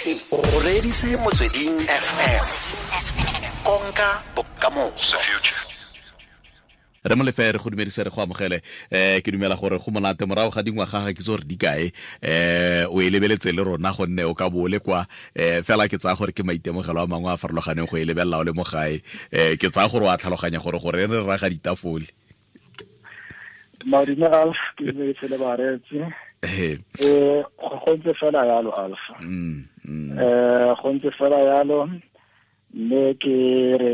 O reditse Motsweding FM, konka bokamoso. Re Molefe, re go dumedise, re go amogele. Ke dumela gore go monate morago ga dingwaga, ga ke tse gore di kae, o e lebeletse le rona, gonne o ka bo o le kwa. Fela ke tsaya gore ke maitemogelo a mangwe a farologaneng go e lebelela o le mo gae. Ke tsaya gore o a tlhaloganya gore re raga ditafole. Madume Alf, ke dumedise le bareetsi. Go ntse fela yalo, Alf. Go ntse fela yalo, mme ke re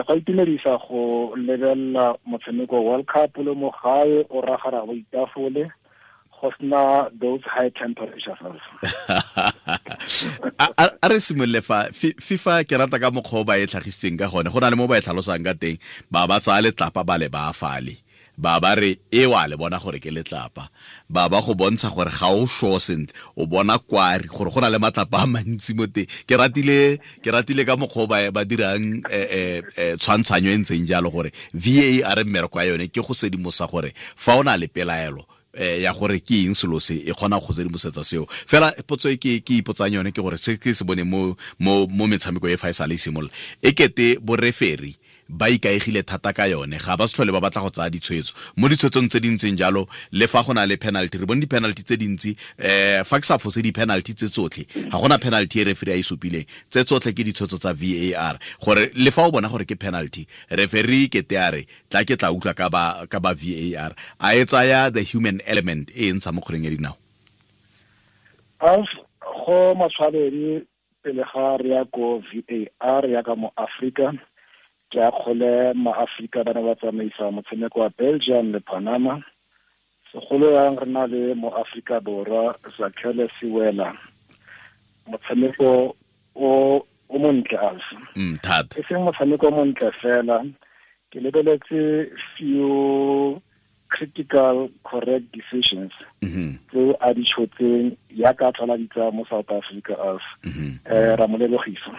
go itumedisa go lebelela motshameko World Cup le mo gae, o ragara go itafole, go sena those high temperatures. A re simolole fa FIFA. Ke rata ka mokgwa o ba e tlhagisitseng ka gone. Go na le mo ba e tlhalosang ka teng, ba ba tsaya letlapa, ba le ba fale, ba ba re e wa le bona gore ke letlapa, ba ba go bontsha gore ga o sure sentle, o bona kwari gore go na le matlapa a mantsi mo teng. Ke ratile ka mokgwa o ba dirang tshwantshanyo e ntseng jalo, gore VAR mmereko ya yone ke go sedimosa gore fa o na le pelaelo ya gore ke eng selo se, e kgona go sedimosetsa seo. Fela potso e ke ipotsang yone ke gore se ke se bone mo metshameko e fa e sale e simolola, e kete boreferi ba ikaegile thata ka yone, ga ba se tlhole ba batla go tsaya ditshwetso mo ditshwetsong tse di ntseng jalo. Le fa go na le penalty, re bone di-penalty tse dintsi, fa ke sa fose, di-penalty tse tsotlhe, ga gona penalty e referee a e supileng, tse tsotlhe ke ditshwetso tsa VAR, gore le fa o bona gore ke penalty, referee kete a re tla ke tla utlwa ka ba VAR, a e tsaya the human element e e ntsha mo kgweleng ya dinao. Alf, go matshwanedi pele ga re ya ko VAR ya ka mo Africa, ke a kgole ma-Afrika ba ne ba tsamaisa motshameko wa Belgium le Panama, segolo yang re na le mo Afrika Borwa Zakhele Siwela, motshameko o montle, Alf. Thata. E seng motshameko o montle fela, ke lebeletse few critical correct decisions tse a di tshotseng yaka a tlhola di tsaya mo South Africa, Alf. Ra mo lebogisa.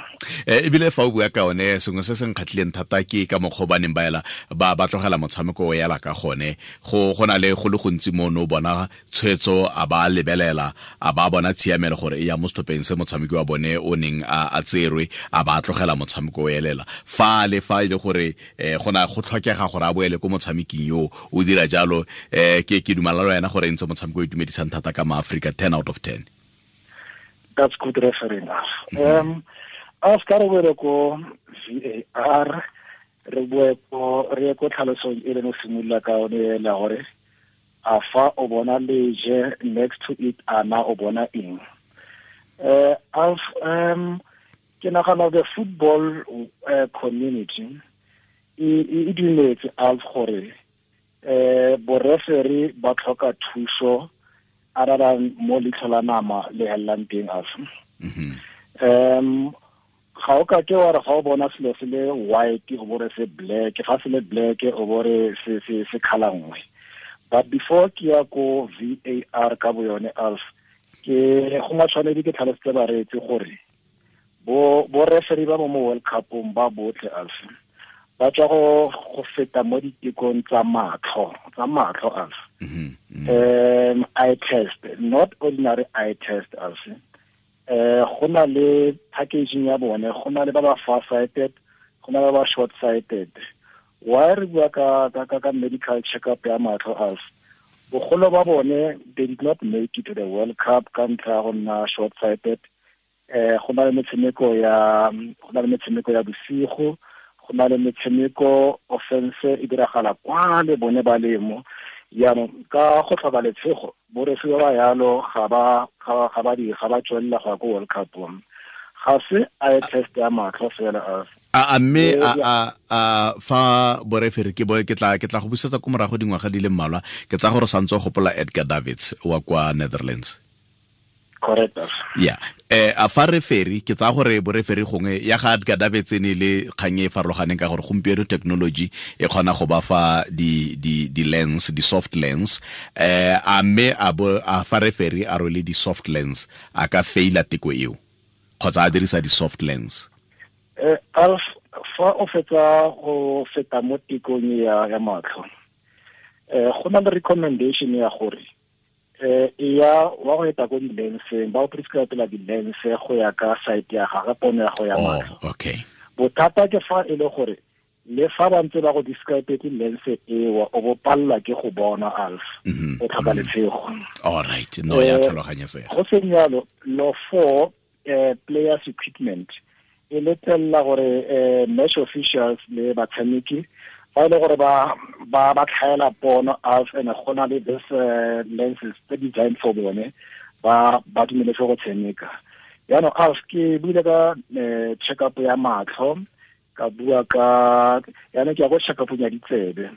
Ebile fa o bua ka one, sengwe se se nkgatlhileng thata ke ka mokgwa o ba neng ba ela ba tlogela motshameko o ela ka gone. Go na le go le gontsi mo no bona tshwetso, a ba lebelela, a ba bona tshiamelo gore e ya mo setlhopheng se motshameki wa bone o neng a tserwe, a ba tlogela motshameko o elela fa le fa e le gore go na go tlhokega gore a boele ko motshameking yo o dira jalo. Ke dumela le wena gore e ntse motshameko o itumedisang thata ka maaforika, 10 out of 10. That's good refereeing, Alf. A se ka re boele ko VAR, re boe ko re ye ko tlhalosong e leng o simolola ka one ela, gore a fa o bona leje, next to it ana o bona eng? Alf, ke nagana the football community e dumetse, Alf, gore boreferi ba tlhoka thuso other than mo leitlho la nama le helelang teng, Alf. Ga o ka ke wa re ga o bona selo se le white, o bore se black, ga se le black, o bore se colour nngwe. But before ke ya ko VAR ka bo yone, Alf, ke go matshwanedi ke tlhalositse bareetsi gore bo referee ba mo World Cupong ba botlhe, Alf, ba tswa go feta mo ditekong tsa matlho, Alf. Eye test, not ordinary eye test, Alf. Go na le packaging ya bone, go na le ba ba far sighted, go na le ba ba short sighted. Why re bua ka medical check up ya matlho, Alf? Bogolo ba bone, they did not make it to the World Cup ka ntlha ya go nna short sighted. Go na le metshameko ya bosigo, go na le metshameko offense e diragala kwa le bone ba lemo. Jaanong ka go tlhoka letshego, borefi ba ba yalo ga ba tswelela go ya ko World Cup. Ga se eye test ya matlho fela, Alf. A mme a fa boreferi ke bo ke tla go busetsa ko morago dingwaga di le mmalwa, ke tsa gore santse o gopola Edgar Davids wa kwa Netherlands. Correct. Yeah, a fa referi, ke tsaya gore boreferi gongwe ya ga Edgar Davids e ne le kgang e farologaneng, ka gore gompieno technology e kgona go ba fa di lens, di soft lens. A mme a bo a fa referi a rwele di soft lens, a ka faila teko eo kgotsa a dirisa di soft lens? Alf, fa o fetsa go feta mo tekong ya matlho, go na le recommendation ya gore Ya wa go eta ko di-lenseng, ba o prescribela di-lens go ya ka site ya gagwe, pono ya go ya matlho. Okay. Bothata ke fa e le gore le fa ba ntse ba go describe lens ewa, o bo pallwa ke go bona, Alf, o tlhoka letshego. All right, no, ya tlhaloganyesega. Go seng yalo, law 4, players equipment e letlelela gore match officials le batshameki fa e le gore ba tlhaela pono, Alf, and go na le this lenses tse designed for bone, ba dumeletse go tshameka. Jaanong, Alf, ke buile ka check up ya matlho, ka bua ka yaanong ke ya go check up ya ditsebe.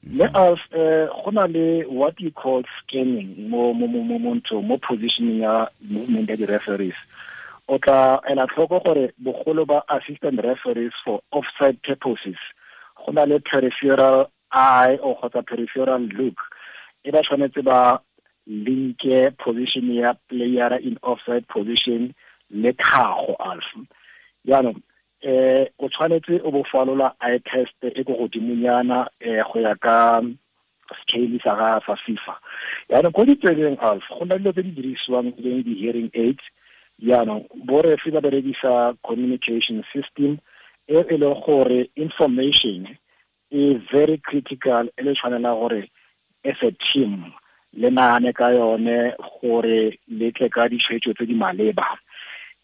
Mme Alf, go na le what you call scanning mo mo mo mo mo ntho mo positioning ya movement ya di-referees. O tla ela tlhoko gore bogolo ba assistant referees for offside purposes go na le peripheral eye or kgotsa peripheral look e ba tshwanetse ba linke position ya player in offside position le tlhago, Alf. Jaanong o tshwanetse o bo falola eye test e ko godimonyana go ya ka scale sa ga sa FIFA. Jaanong ko ditsebeng, Alf, go na dilo tse di dirisiwang leng di-hearing aids. Jaanong borefi ba berekisa communication system e e leng gore information e very critical, e le tshwanela gore as a team le nagane ka yone gore le tle ka ditshwetso tse di maleba.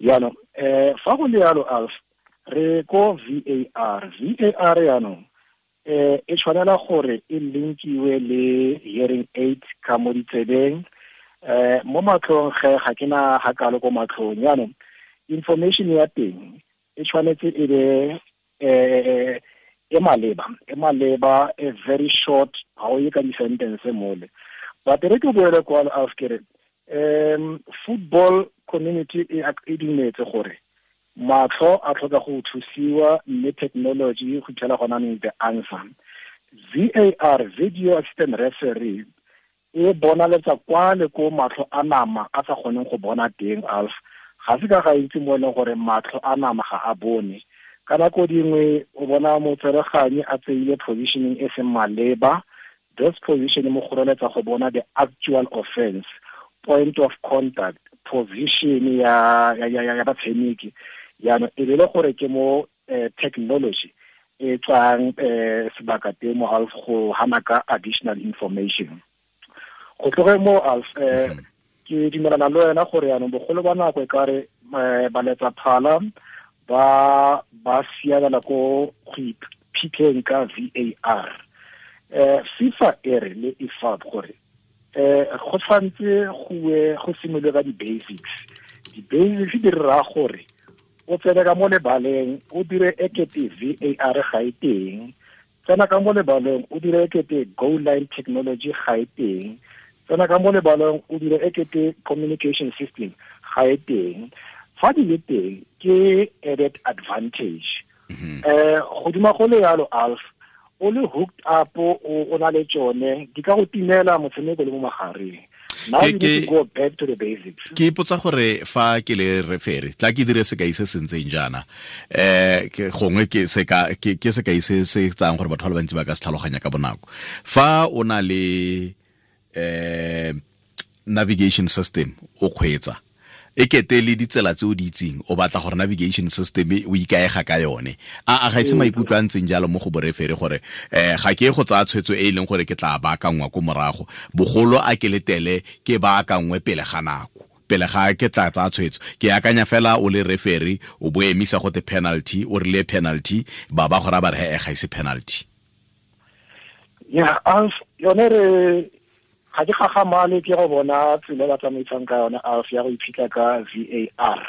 Jaanong fa go le yalo, Alf, re ko VAR. VAR jaanong e tshwanela gore e linkiwe le hearing aid ka mo ditsebeng, mo matlhong ge ga ke na ga kalo ko matlhong. Jaanong information ya teng e tshwanetse e be e maleba, e very short, ga o ye ka di-sentence mole. But re ke boele kwalo, Alf, ke re football community e dumetse gore matlho a tlhoka go thusiwa, mme technology go fitlhela gona neng the answer. VAR, video assistant referee, e bonaletsa kwa le ko matlho a nama a sa kgoneng go bona teng, Alf. Ga se ka ga itse mo e leng gore matlho a nama ga a bone. Ka nako dingwe o bona motsereganyi a tseile positioning e seng maleba. This position mo kgoreletsa go bona the actual offense, point of contact, position ya batshameki. Jaanong e be le gore ke mo technology e tswang sebaka teng mo, Alf, go hana ka additional information. Go tloge mo, Alf, ke dumelana le wena gore yaanong bogolo ba nako e kare baletsa phala ba siamela ko go iphitlheng ka VAR. FIFA e re le IFAB gore go tshwanetse go simolole ka di-basics. Di-basics di raya gore o tsene ka mo lebaleng o dire ekete VAR ga e teng, tsena ka mo lebaleng o dire ekete goal line technology ga e teng, tsena ka mo lebaleng o dire ekete communication system ga e teng. Fa di le teng ke added advantage. Godima go le yalo, Alf, o le hooked up, o na le tsone, di ka go timela motshameko le mo magareng. Now you need to go back to the basics. Ke ipotsa gore fa ke le referee, tla ke dire sekai se se ntseng jaana, ke gongwe ke seka ke sekai se se tsang gore batho ba le bantsi ba ka se tlhaloganya ka bonako. Fa o na le navigation system o kgweetsa, e kete le ditsela tse o di itseng, o batla gore navigation system o ikaega ka yone, a ga ise maikutlo a ntseng jalo mo go boreferee gore ga ke go tsaya tshwetso e e leng gore ke tla baakangwa ko morago, bogolo a ke letele ke baakangwe pele ga nako, pele ga ke tla tsaya tshwetso? Ke akanya fela o le referee o bo emisa go te penalty, o rile penalty, ba ba go ra ba re he ga ise penalty. Ya, Alf, yone re ga ke gagamale ke go bona tsela ba tsamaisang ka yone, Alf, ya go iphitlha ka VAR.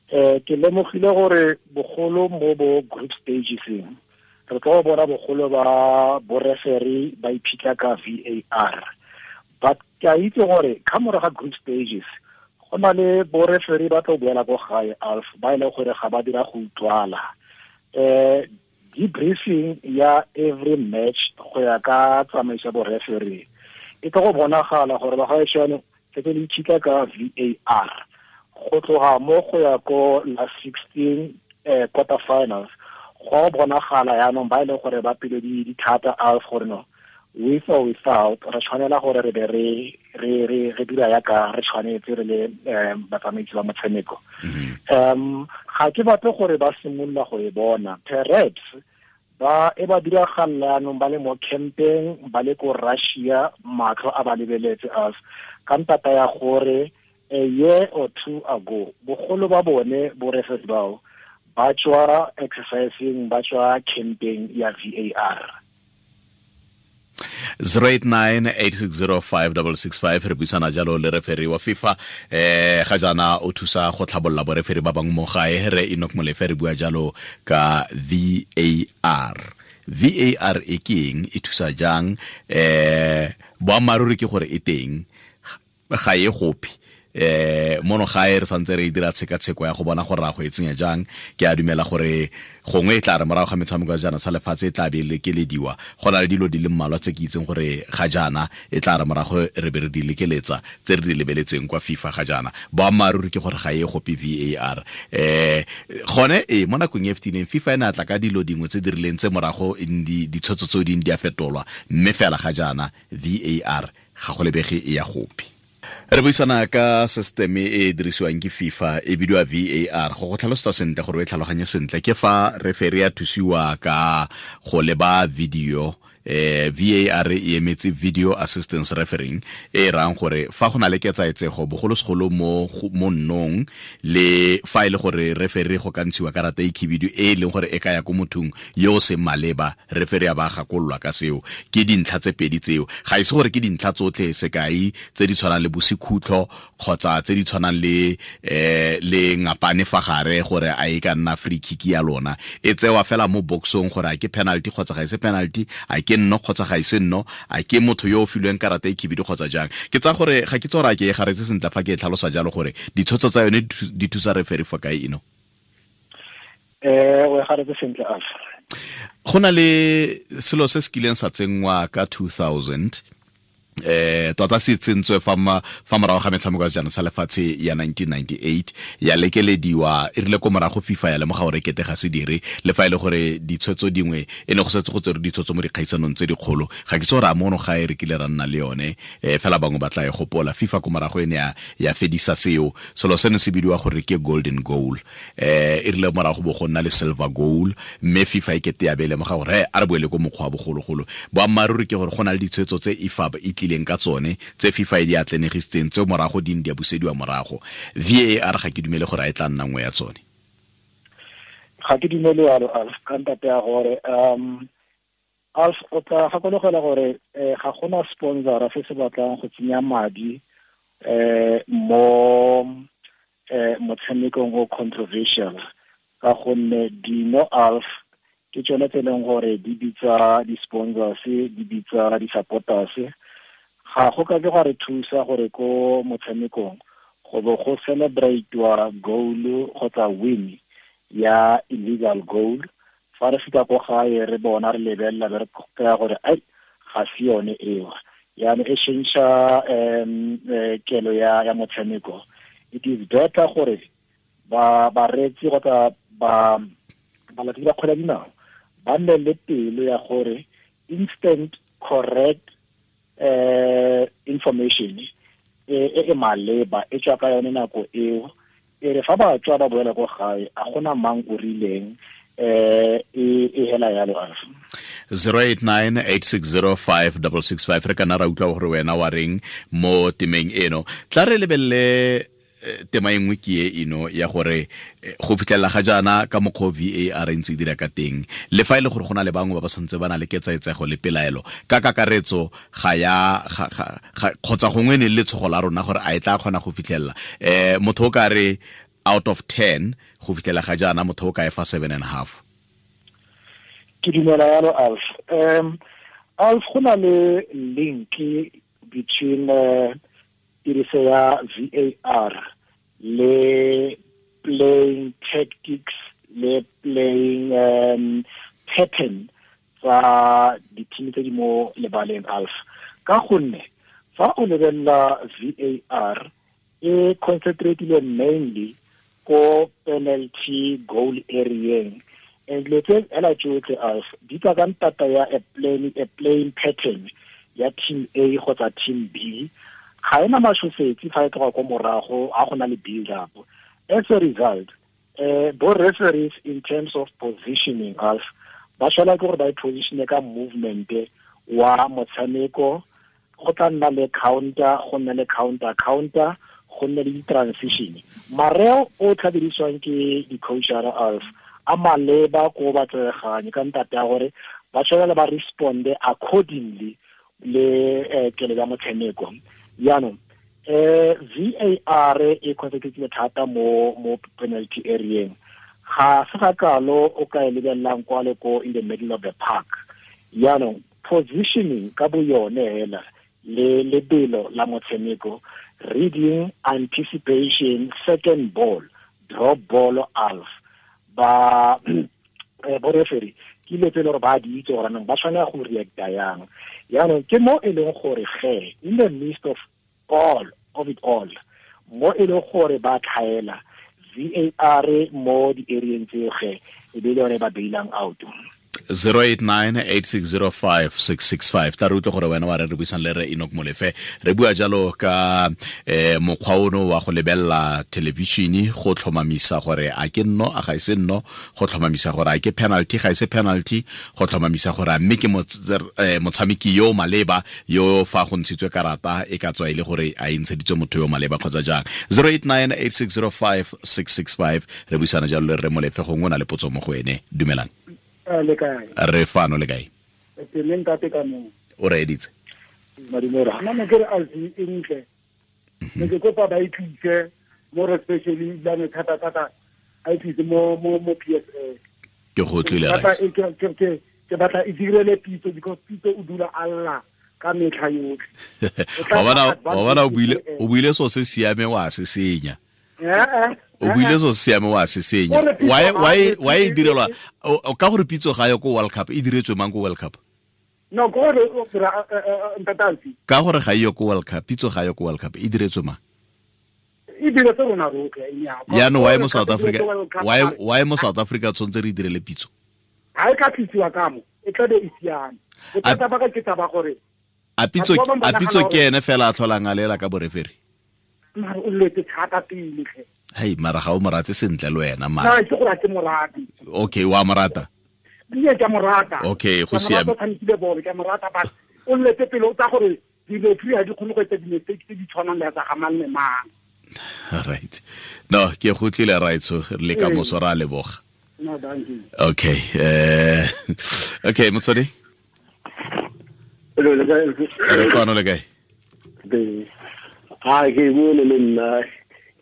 Ke lemogile gore bogolo mo bo group stageseng re tlo bona bogolo ba boreferee ba iphitlha ka VAR, but ke a itse gore ka morago ga group stages go na le boreferee ba tlo boela ko gae, Alf, ba e leng gore ga ba dira go utlwala. Debriefing ya every match go ya ka tsamaiso ya bo-referee e tlo go bonagala gore ba gaešano setse le itšhitla ka VAR go tloga mo go ya ko la 16, quarter finals, go bonagala yaanong ba e leng gore ba pelo di thata, Alf, gore no With or without, re tshwanela gore re be re re re re dira yaka re tshwanetse re le batsamaisi ba motshameko. Ga ke batle gore ba simolola go e bona. Perhaps ba e ba diragalela yanong ba le mo campeng, ba le ko Russia, matlho a ba lebeletse us ka ntata ya gore a year or two ago bogolo ba bone bo referee bao ba tswa exercising, ba tswa camping ya VAR. 0898605665 re buisana jalo le referee wa FIFA, ga jaana o thusa go tlhabolola boreferi ba bangwe mo gae, re Enoch Molefe. Re bua jalo ka VAR. VAR e ke eng, e thusa jang? Boammaaruri ke gore e teng, ga e gope mono gae, re santse re dira tshekatsheko ya go bona gore ra go e tsenya jang. Ke a dumela gore gongwe e tla re morago ga metshameko ya jaana sa lefatshe e tla be lekelediwa. Go na le dilo di le mmalwa tse ke itseng gore ga jaana e tla re morago re be re di lekeletsa, tse re di lebeletseng kwa FIFA ga jaana. Boammaaruri ke gore ga e gope VAR. Gone e mo nakong e fetileng FIFA e ne a tla ka dilo dingwe tse di rileng tse morago ditshwetso tseo dingwe di a fetolwa, mme fela ga jaana VAR ga go lebege e ya gope. Re buisana ka system e e dirisiwang ke FIFA, e bidiwa VAR. Go go tlhalosetsa sentle gore o e tlhaloganye sentle, ke fa referee a thusiwa ka go leba video. VAR e emetse video assistance refereeing, e rang gore fa go na le ketsaetsego, bogolosegolo mo nnong, le fa e le gore referee go ka ntshiwa karata e khibidu e e leng gore e ka ya ko mothong yo o seng maleba, referee a ba gakololwa ka seo. Ke dintlha tse pedi tseo, ga e se gore ke dintlha tsotlhe, sekai tse di tshwanang le bosekhutlho kgotsa tse di tshwanang le le ngapane fa gare, gore a e ka nna free kick ya lona, e tsewa fela mo boxong gore a ke penalty kgotsa ga e se penalty, a ke nno kgotsa ga e se nno, a ke motho yo o filweng karata e khibidu kgotsa jang. Ke tsa gore ga ke tsora ke e garetse sentle fa ke e tlhalosa jalo gore ditshwetso tsa yone di thusa referee fa kae eno. O e garetse sentle, Alf. Go na le selo se se kileng sa tsenngwa ka 2000, tota se tsentswe fa morago ga metshameko ya sejana sa lefatshe ya 1998, ya lekelediwa. E rile ko morago FIFA ya lemoga gore kete ga se dire, le fa e le gore ditshwetso dingwe e ne go setse go tsere ditshwetso mo dikgaisanong tse dikgolo. Ga ke tse gore a mono ga e re kile ra nna le yone, fela bangwe ba tla e gopola. FIFA ko morago e ne ya fedisa seo. Selo seno se bidiwa gore ke golden goal. E rile morago bo go nna le silver goal, mme FIFA e kete ya be lemoga gore a re boele ko mokgwa wa bogologolo. Boammaaruri ke gore go na le ditshwetso tse IFAB e tlileng ka tsone, tse FIFA e di atlenegisitseng, tse morago di di a busediwa morago. VAR ga ke dumele gore a e tla nna nngwe ya tsone. Ga ke dumele yalo, Alf, ka ntate ya gore Alf, o tla gakologela gore ga gona sponsora se se batlang go tsenya madi mo motshamekong o controversial, ka gonne dino, Alf, ke tsone tse e leng gore di bitsa di-sponsors, di bitsa di-supporters. Ga go ka ke gwa re thusa gore ko motshamekong go bo go celebrate-wa goal kgotsa win ya illegal goal, fa re fika ko gae re bona, re lebelela, be re kry-a gore ai, ga se yone eo. Yaanong e change kelo ya motshameko. It is better gore ba bareetsi kgotsa ba balatedi ba kgwele ya dinao ba nne le pelo ya gore instant correct information e e maleba e tswa ka yone nako eo, e re fa ba tswa ba boela ko gae, a gona mang o rileng e hela yalo, Alf. 0898605665, re kana ra utlwa gore wena wa reng mo temeng eno. Tla re lebelele tema e nngwe, ke e eno ya gore go fitlhelela ga jaana ka mokgwa VAR e ntse e dira ka teng, le fa e le gore go na le bangwe ba ba santse ba na le ketsaetsego le pelaelo ka kakaretso, ga ya kgotsa gongwe ne le letshogo la rona gore a e tla kgona go fitlhelela motho o ka re out of 10, go fitlhela ga jaana motho o ka e fa 7.5. Ke dumela yalo, Alf. Alf, go na le link between tiriso ya VAR le playing tactics le playing pattern tsa di-team tse di mo lebaleng, Alf, ka gonne fa o lebelela VAR e concentrateile mainly ko penalty goal areeng. And dilo tse hela tsotlhe as di tswa ka ntata ya a playing pattern ya team A kgotsa team B. Ga ena mashosetsi fa e tloga ko morago ga go na le build up. As a result, bo referees in terms of positioning us ba tshwanela ke gore ba e positione ka movement wa motshameko, go tla nna le counter, go nne le counter, go nne le di-transition. Mareo o tla dirisiwang ke di-coachara as a maleba ko ba tsereganye ka ntate ya gore ba tshwanela ba responde accordingly le kelo ya motshameko. Jaanong VAR e concentrate thata mo penalty area. Ga se ga kalo o ka e lebelelang kwa le ko in the middle of the park. Jaanong positioning ka bo yone hela le lebelo la motshameko, reading, anticipation, second ball, drop ball, alf ba bo referee ke ile tsele gore ba di itse gore nang ba tshwanela go reacta yang. Jaanong ke mo e leng gore ge in the midst of all of it all, mo e leng gore ba tlhaela VAR mo di-areeng tseo ge e be le yone ba bailang out. 089-8605-665. Ta re utlwe gore wena wa re re buisang le re Enoch Molefe. Re bua jalo ka mokgwa ono wa go lebelela television go tlhomamisa gore a ke nno a ga ise nno, go tlhomamisa gore a ke penalty ga ise penalty, go tlhomamisa gore a mme ke motshameki yo maleba yo fa go ntshitswe karata e ka tswa e le gore a e ntsheditswe motho yo maleba kgotsa jang. 089-8605-665. Re buisana jalo le re Molefe, gongwe o na le potso mo go ene. Dumelang. Le kae? Re fano, le kae? Teng ntate ka mo. O re editse. Madumela. Nna ne ke re alfi e ntle. Ne ke kopa ba itlise more especially la ne thata thata a itlise mo PSL. Ke go tlile right. Ke batla e direle Pitso because Pitso o dula alla ka metlha yotlhe. Wa bona o buile so se siame wa se senya. O buile so siame wa se senya. Why e direlwa ka gore Pitso ga yo ko World Cup, e diretswe mang ko World Cup? No, go re ntatansi. Ka gore ga yo ko World Cup, Pitso ga yo ko World Cup, e diretswe mang? E diretswe rona rotlhe. Jaanong why mo South Africa? Why mo South Africa tshwanetse re direle Pitso? Ha e ka tlisiwa ka mo, e tla be e siame. Bothata ba ka ke taba gore a Pitso ke ene fela a tlholang a lela ka boreferi. Mara o letse thata pele tlhe. Hei, mara ga o morate sentle le wena mara. No, ke gore ke morate. Okay, wa morata. Nne ke morata. Okay, go siame. Ke tshamekile bolo, ke morata but o letse pele o tsa gore di-referee ha di kgone go etsa di-mistake tse di tshwanang le tsa ga mang le mang. Right. No, ke go tlile right so re le ka moso ra leboga. No, thank you. Okay. Okay, motswadi. Hello, le kae? Re fano, le kae? Ha ke bone le nna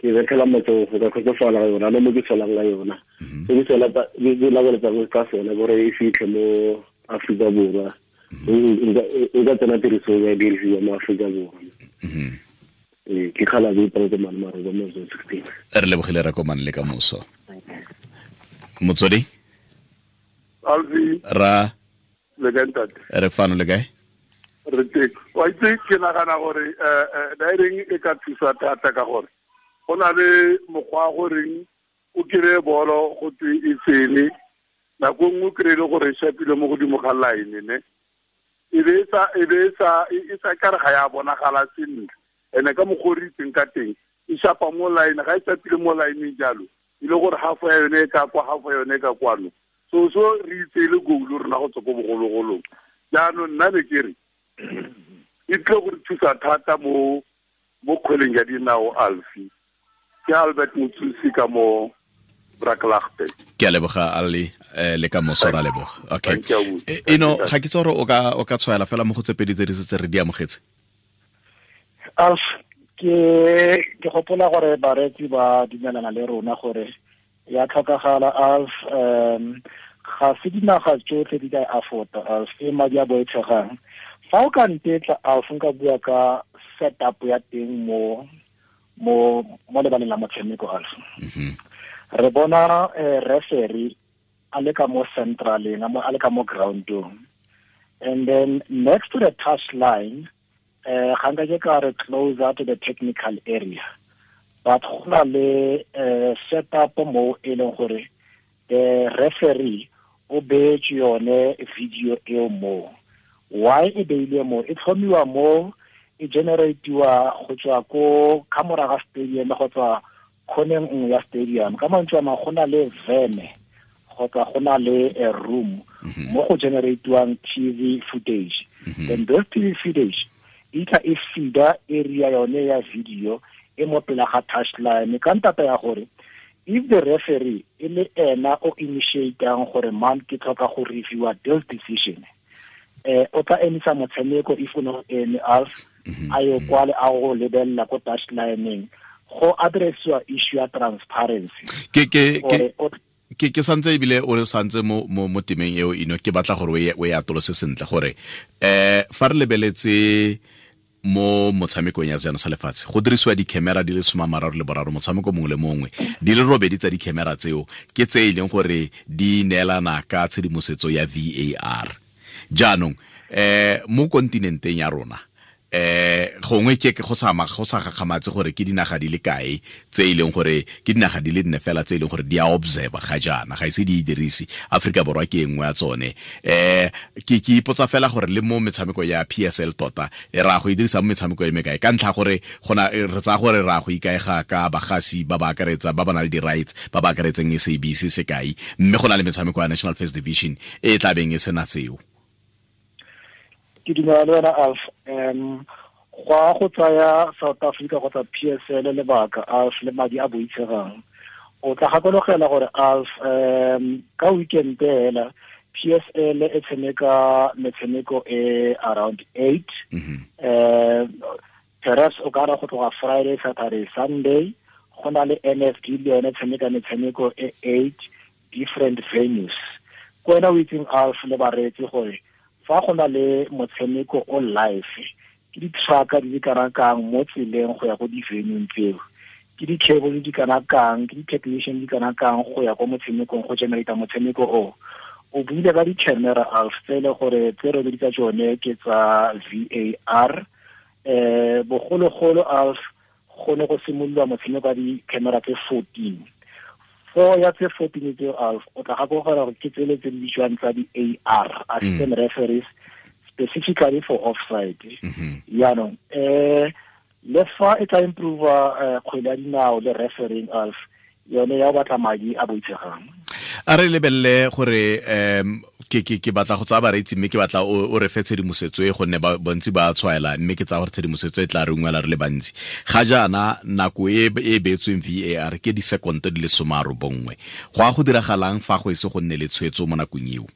ke betlhela matsogo ka kgotsofala ka yona le mo ke tswelang ka yona. Se ke tswela ke laboletsa ka sone gore e fitlhe mo Aforika Borwa. E ka tsena tirisong ya dirisiwa mo Aforika Borwa. Ke kgala bo iparetse mane maroba mo zone 16. Re lebogile re komane le ka moso. Motswedi? Alfi. Ra. Le kae ntate? Re fano, le kae? Re teng. Wa itse ke nagana gore daireng e ka thusa thata ka gore go na le mokgwa goreng o kry-e bolo go twe e tsene, nako nngwe o kry-e le gore e shapile mo godimo ga line ne e be e sa kare ga ya bonagala sentle. Ene ka mokgwa o re itseng ka teng e shapa mo line, ga e shapile mo lineng jalo e le gore half ya yone e ka kwa, half ya yone e ka kwano. So re itse e le goal rona go tswa ko bogologolong. Jaanong nna ne ke re e tlile go re thusa thata mo kgweleng ya dinao Alfi. Ke Albert Motsusi ka mo Braklaagte. Ke a leboga Ali, le ka moso ra leboga. Okay. Eno ga ke tsore o ka tshwaela fela mo go tse pedi tse di setse re di amogetse. Alf, ke gopola gore bareetsi ba dumelana le rona gore ya tlhokagala Alf. Ga se dinaga tsotlhe di ka afforda Alf, e madi a boitshegang. Fa o ka ntetla Alf, nka bua ka setup ya teng mo lebaleng la motshameko Alf. Re bona referee a le ka mo centraleng, a le ka mo groundong, and then next to the touch line, ga nka ke ka re closer to the technical area, but go na le setup mo e leng gore the referee O beetse yone video eo mo. Why e beilwe mo? E tlhomiwa mo, e generatiwa go tswa ko kamora ga stadium go tswa khoneng nngwe ya stadium. Ka mantswe a mangwe, go na le vene kgotsa go na le a room mo go generatiwang TV footage. Then those TV footage e tla e feeda area yone ya video e mo pela ga touchline, ka ntata ya gore if the referee e le ena o initiatang gore, "Man, ke tlhoka go reviewa this decision," o tla emisa motshameko if o no eme, Alf, a yo kwale a go lebelela ko touchlineng go addressiwa issue ya transparency. Ke Gore o ke santse ebile o santse mo temeng eo ino, ke batla gore o e atolose sentle gore fa re lebeletse mo motshamekong ya sejana sa lefatshe, go dirisiwa di-camera di le 33 motshameko mongwe le mongwe. Di le 8 tsa di-camera tseo ke tse e leng gore di neelana ka tshedimosetso ya VAR. Jaanong mo kontinenteng ya rona, gongwe ke go sa gakgamatse gore ke dinaga di le kae tse e leng gore ke dinaga di le 4 fela tse e leng gore di a observe ga jaana, ga ise di e dirise. Aforika Borwa ke e nngwe ya tsone. Ke ipotsa fela gore le mo metshameko ya PSL tota e ra go e dirisa mo metshameko e mekae, ka ntlha gore gona re tsaya gore ra go ikaega ka bagasi ba ba akaretsa ba ba nang le di-rights ba ba akaretseng SABC sekai, mme go na le metshameko ya National First Division e e tla beng e sena seo. Ke dumela le wena, Alf. Go a go tsaya South Africa kgotsa PSL lebaka, Alf, le madi a boitshegang. O tla gakologela gore, Alf, ka weekend hela PSL e tshameka metshameko e around 8. Perhaps o ka ra go tloga Friday, Saturday, Sunday. Go na le NFD, le yone tshameka metshameko e 8, different venues. Ko wena o itseng, Alf, le bareetsi, gore fa go na le motshameko o live, ke di-trucka di le kana kang mo tseleng go ya ko di-venue tseo, ke di-cable di kana kang, ke di-technician di kana kang go ya ko motshamekong go generata motshameko o. O buile ka di-camera, Alf, tse e le gore tse robedi tsa tsone ke tsa VAR. Bogologolo, Alf, go ne go simololwa motshameko wa di-camera tse 14. Four ya tse 14 tseo, Alf, o tla gakologelwa gore ke tsele tse di bitswang tsa di-AR, assistant referees, specifically for offside. Yaanong le fa e tla improve kgwele ya dinao le refereeing, Alf, yone ya go batla madi a boitshegang. A re lebelele gore ke batla go tsaya bareetsi, mme ke batla o re fe tshedimosetso e, gonne bontsi ba tshwaela, mme ke tsaya gore tshedimosetso e tla re ungwela re le bantsi. Ga jaana nako e e beetsweng VAR ke disekonto di le 90. Go a go diragalang fa go ese go nne le tshwetso mo nakong eo,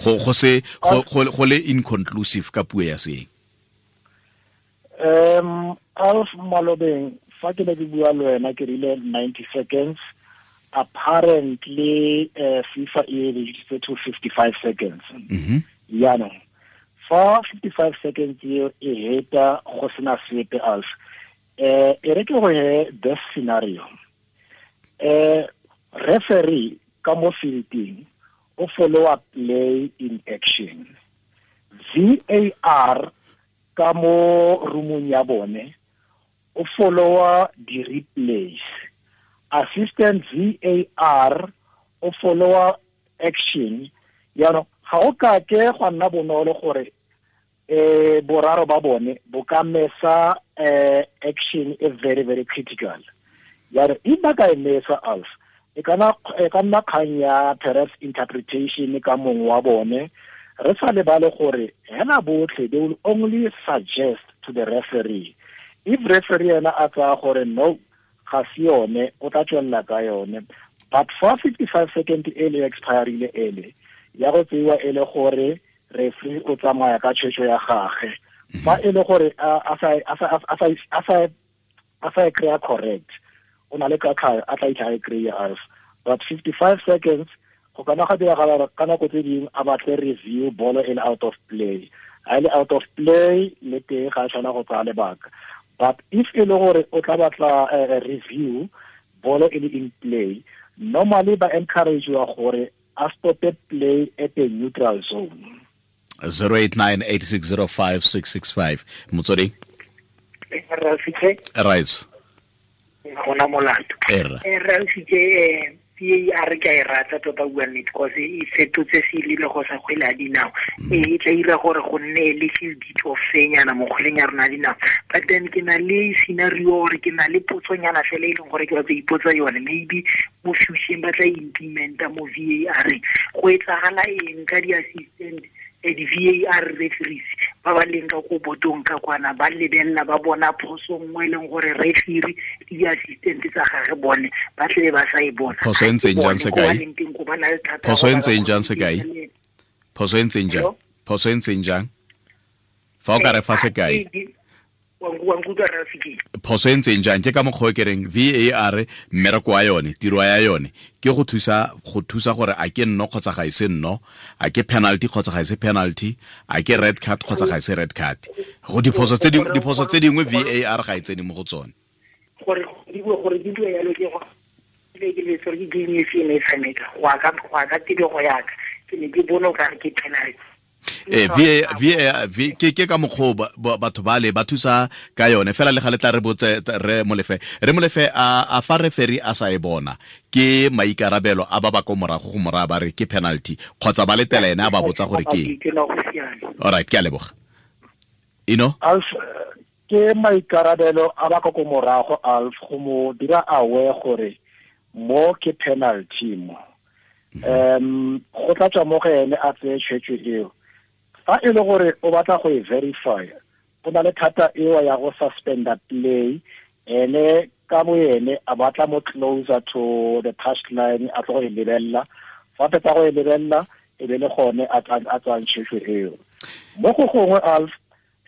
go se go le inconclusive ka puo ya seeng? Alf, malobeng fa ke ne ke bua le wena ke rile 90 seconds. Apparently FIFA e reduced to 55 seconds. Yaanong fa 55 seconds eo e heta go sena sepe, Alf, e re ke go he this scenario. Referee ka mo fielding o follow up play in action, VAR ka mo roomong ya bone o followa di-replays, assistant VAR o followa action. Yaanong ga o ka ke gwa nna bonolo gore boraro ba bone bo ka mesa action e very, very critical. Yaanong if ba ka e mesa, Alf, e ka nna kgang ya perhaps interpretation ka mongwe wa bone. Re sa lebale gore hela botlhe they will only suggest to the referee. If referee ena a tsaya gore no, ga se yone, o tla tswelela ka yone. But fa 55 second ele expirile, ele ya go tseiwa e le gore referee o tsamaya ka tshwetso ya gage. Fa e le gore a sa e kry-a correct, o na le katlhayo a tla itlha e kry-a, Alf. But 55 seconds go kana ga diragala ka nako tse dingwe a batle review, bolo e le out of play. Ha e le out of play le teng ga a tshwana go tsaya lebaka. But if e le gore o tla batla review, bolo e le in play, normally ba encourageiwa gore a stope play at a neutral zone. 0898605665, Motsweding. Ralfitse. Right. Gona molato. Erra. Ralfitse, VAR ke a e rata tota bua nnete, cause e fetotse selebego sa kgwele ya dinao. E tla dira gore go nne a little bit of fenyana mo kgweleng ya rona ya dinao. But then ke na le scenario gore ke na le potsonyana fela e leng gore ke batla ipotsa yone, maybe mo future ba tla implementa mo VAR. Go etsagala eng ka di-assistant di-VAR referees ba ba leng ka ko botong ka kwana, ba lebelela ba bona phoso nngwe e leng gore referee le di-assistant tsa gage bone ba tlebe ba sa e bona. Phoso e ntseng jang sekai? Phoso e ntseng jang sekai? Phoso e ntseng jang? Phoso e ntseng jang? Fa o ka re fa sekai. Phoso e ntseng jang? Ke ka mokgwa o ke reng VAR mmereko wa yone, tiro ya yone ke go thusa gore a ke nno kgotsa ga e se nno, a ke penalty kgotsa ga e se penalty, a ke red card kgotsa ga e se red card. Go diphoso tse dingwe VAR ga e tsene mo go tsone. Gore di bue yalo ke go ke le tsore ke game e fe e tshameka go ka tebego ya ka ke ne ke bona o kare ke penalty. VAR ke ka mokgwa batho ba le ba thusa ka yone fela le ga le tla re botse re Molefe a fa referee a sa e bona ke maikarabelo a ba ba ko morago go moraya ba re ke penalty kgotsa ba letela ene a ba botsa gore ke. All right, ke a leboga. Ino Alf, ke maikarabelo a ba ko morago Alf go mo dira aware gore mo ke penalty mo. Go tla tswa mo go ene a tseye tshwetso eo. Fa e le gore o batla go e verify, o na le thata eo ya go suspenda play, ene ka bo ene a batla mo closer to the touch line a tlo go e lebelela. Fa fetsa go e lebelela e be le gone a tswang tshwetso eo. Mo go gongwe Alf,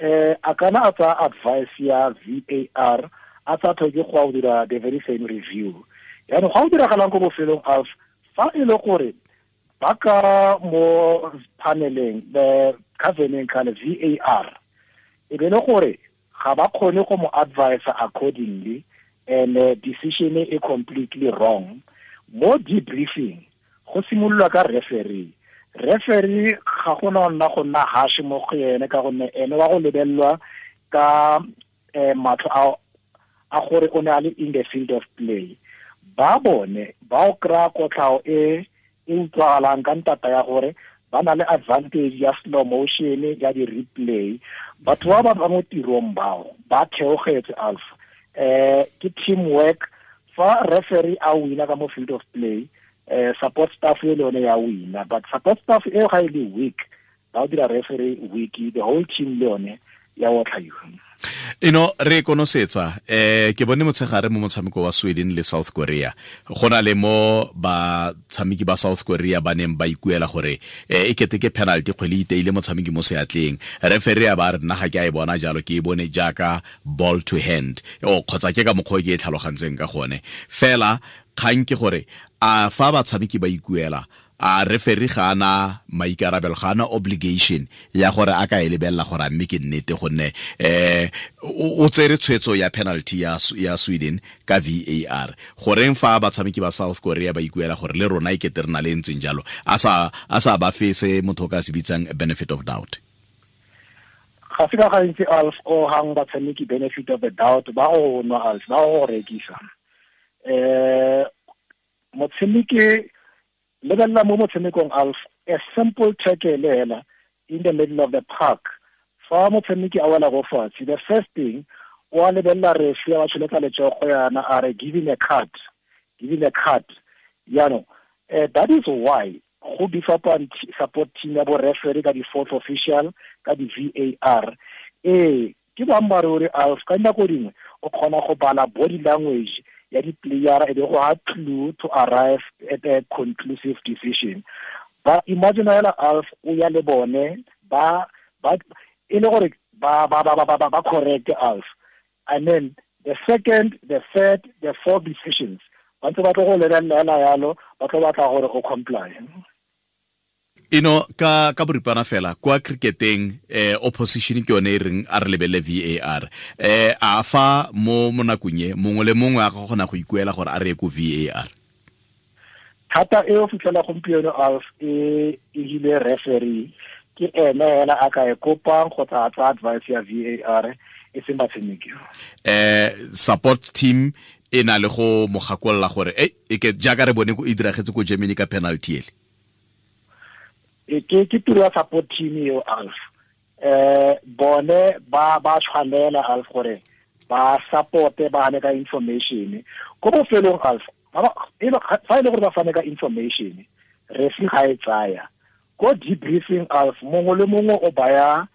a kana a tsaya advice ya VAR a sa tlhoke go dira the very same review. Yaanong ga o diragalang ko bofelong Alf, fa e le gore ba ka mo paneleng the caveneng kana VAR e be le gore ga ba kgone go mo advise accordingly and decision e completely wrong, mo debriefing go simololwa ka referee. Referee ga gona nna go nna harsh mo go ene ka gonne ene wa go lebellwa ka matlho a gore o ne a le in the field of play. Ba bone ba o kry-a kotlhao e e utlwagalang ka ntata ya gore ba na le advantage ya slow motion ya di-replay. Batho ba ba mo tirong bao ba theogetse Alf. Ke teamwork. Fa referee a wina ka mo field of play, support staff e le yone ya wina, but support staff e ga e le weak, ba o dira referee weak, the whole team le yone ya otlhaiwa. Ino re konosetsa ke bone motshegare mo motshameko wa Sweden le South Korea, go na le mo batshameki ba South Korea ba neng ba ikuela gore e kete ke penalty kgwele iteile motshameki mo seatleng, referee a ba re nna ga ke a e bona jalo, ke e bone jaaka ball to hand o kgotsa ke ka mokgwa ke e tlhalogantseng ka gone. Fela kgang ke gore a fa batshameki ba ikuela, a referee ga ana maikarabelo, ga ana obligation ya gore a ka e lebelela gore a mme ke nnete, gonne o tsere tshwetso ya penalty ya Sweden ka VAR. Goreng fa batshameki ba South Korea ba ikuela gore le rona e kete re na le ntseng jalo, a sa ba fe se motho o ka se bitsang benefit of doubt? Ga se ka gantsi Alf o hang batshameki benefit of the doubt, ba go nwa Alf, ba go rekisa. Motshameki lebelela mo motshamekong Alf, a simple tackle hela in the middle of the park. Fa motshameki a wela go fatshe, the first thing o a lebelela referee a tsholetsa letsogo yana a re give him a card, give him a card. Yaanong that is why go beef up support team ya bo referee ka di-fourth official ka di-VAR. Ke boammaaruri Alf, ka dinako dingwe o kgona go bala body language ya di-player e be go ha clue to arrive at a conclusive decision. But imagine hela Alf o ya le bone ba e le gore ba correct Alf, and then the second, the third, the fourth decisions ba ntse ba tlo go lebelela yalo, ba tlo batla gore o comply. Ino ka boripana fela kwa cricketeng opposition ke yone e reng a re lebelele VAR. A fa mo nakong e mongwe le mongwe a ka kgona go ikuela gore a re ye ko VAR? Thata e o fitlhela gompieno Alf e hile referee ke ene hela a ka e kopang kgotsa a tsaya advice ya VAR e seng batshameki. Support team E na le go mo gakolola gore e ke jaaka re bone e diragetse ko Germany ka penalty ele. Ke tiro ya support team eo, Alf. Bone ba tshwanela, Alf, gore ba supporte, ba hane ka information ko bofelong, Alf. Fa e le gore ba fane ka information, referee ga e tsaya ko debriefing, Alf, mongwe le mongwe o baya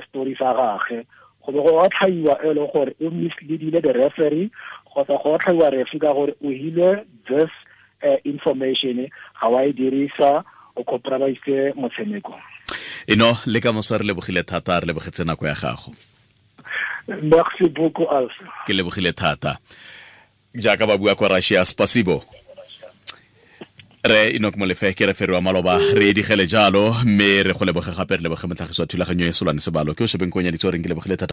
story sa gagwe, go be go otlhaiwa e leng gore o misleadile the referee, kgotsa go otlhaiwa referee ka gore o hile this information, ga wa e dirisa, o compromise motshameko. Eno le ka moso, re lebogile thata, re lebogetse nako ya gago. Merci beaucoup, Alf. Ke lebogile thata. Jaaka ba bua kwa Russia, spasibo. Re Enoch Molefe ke referee wa maloba, re edigele jalo, mme re go leboge gape, re leboge motlhagisi wa thulaganyo e, Solwane Sebalo, ke o shebeng konyaditse goreng ke lebogile thata.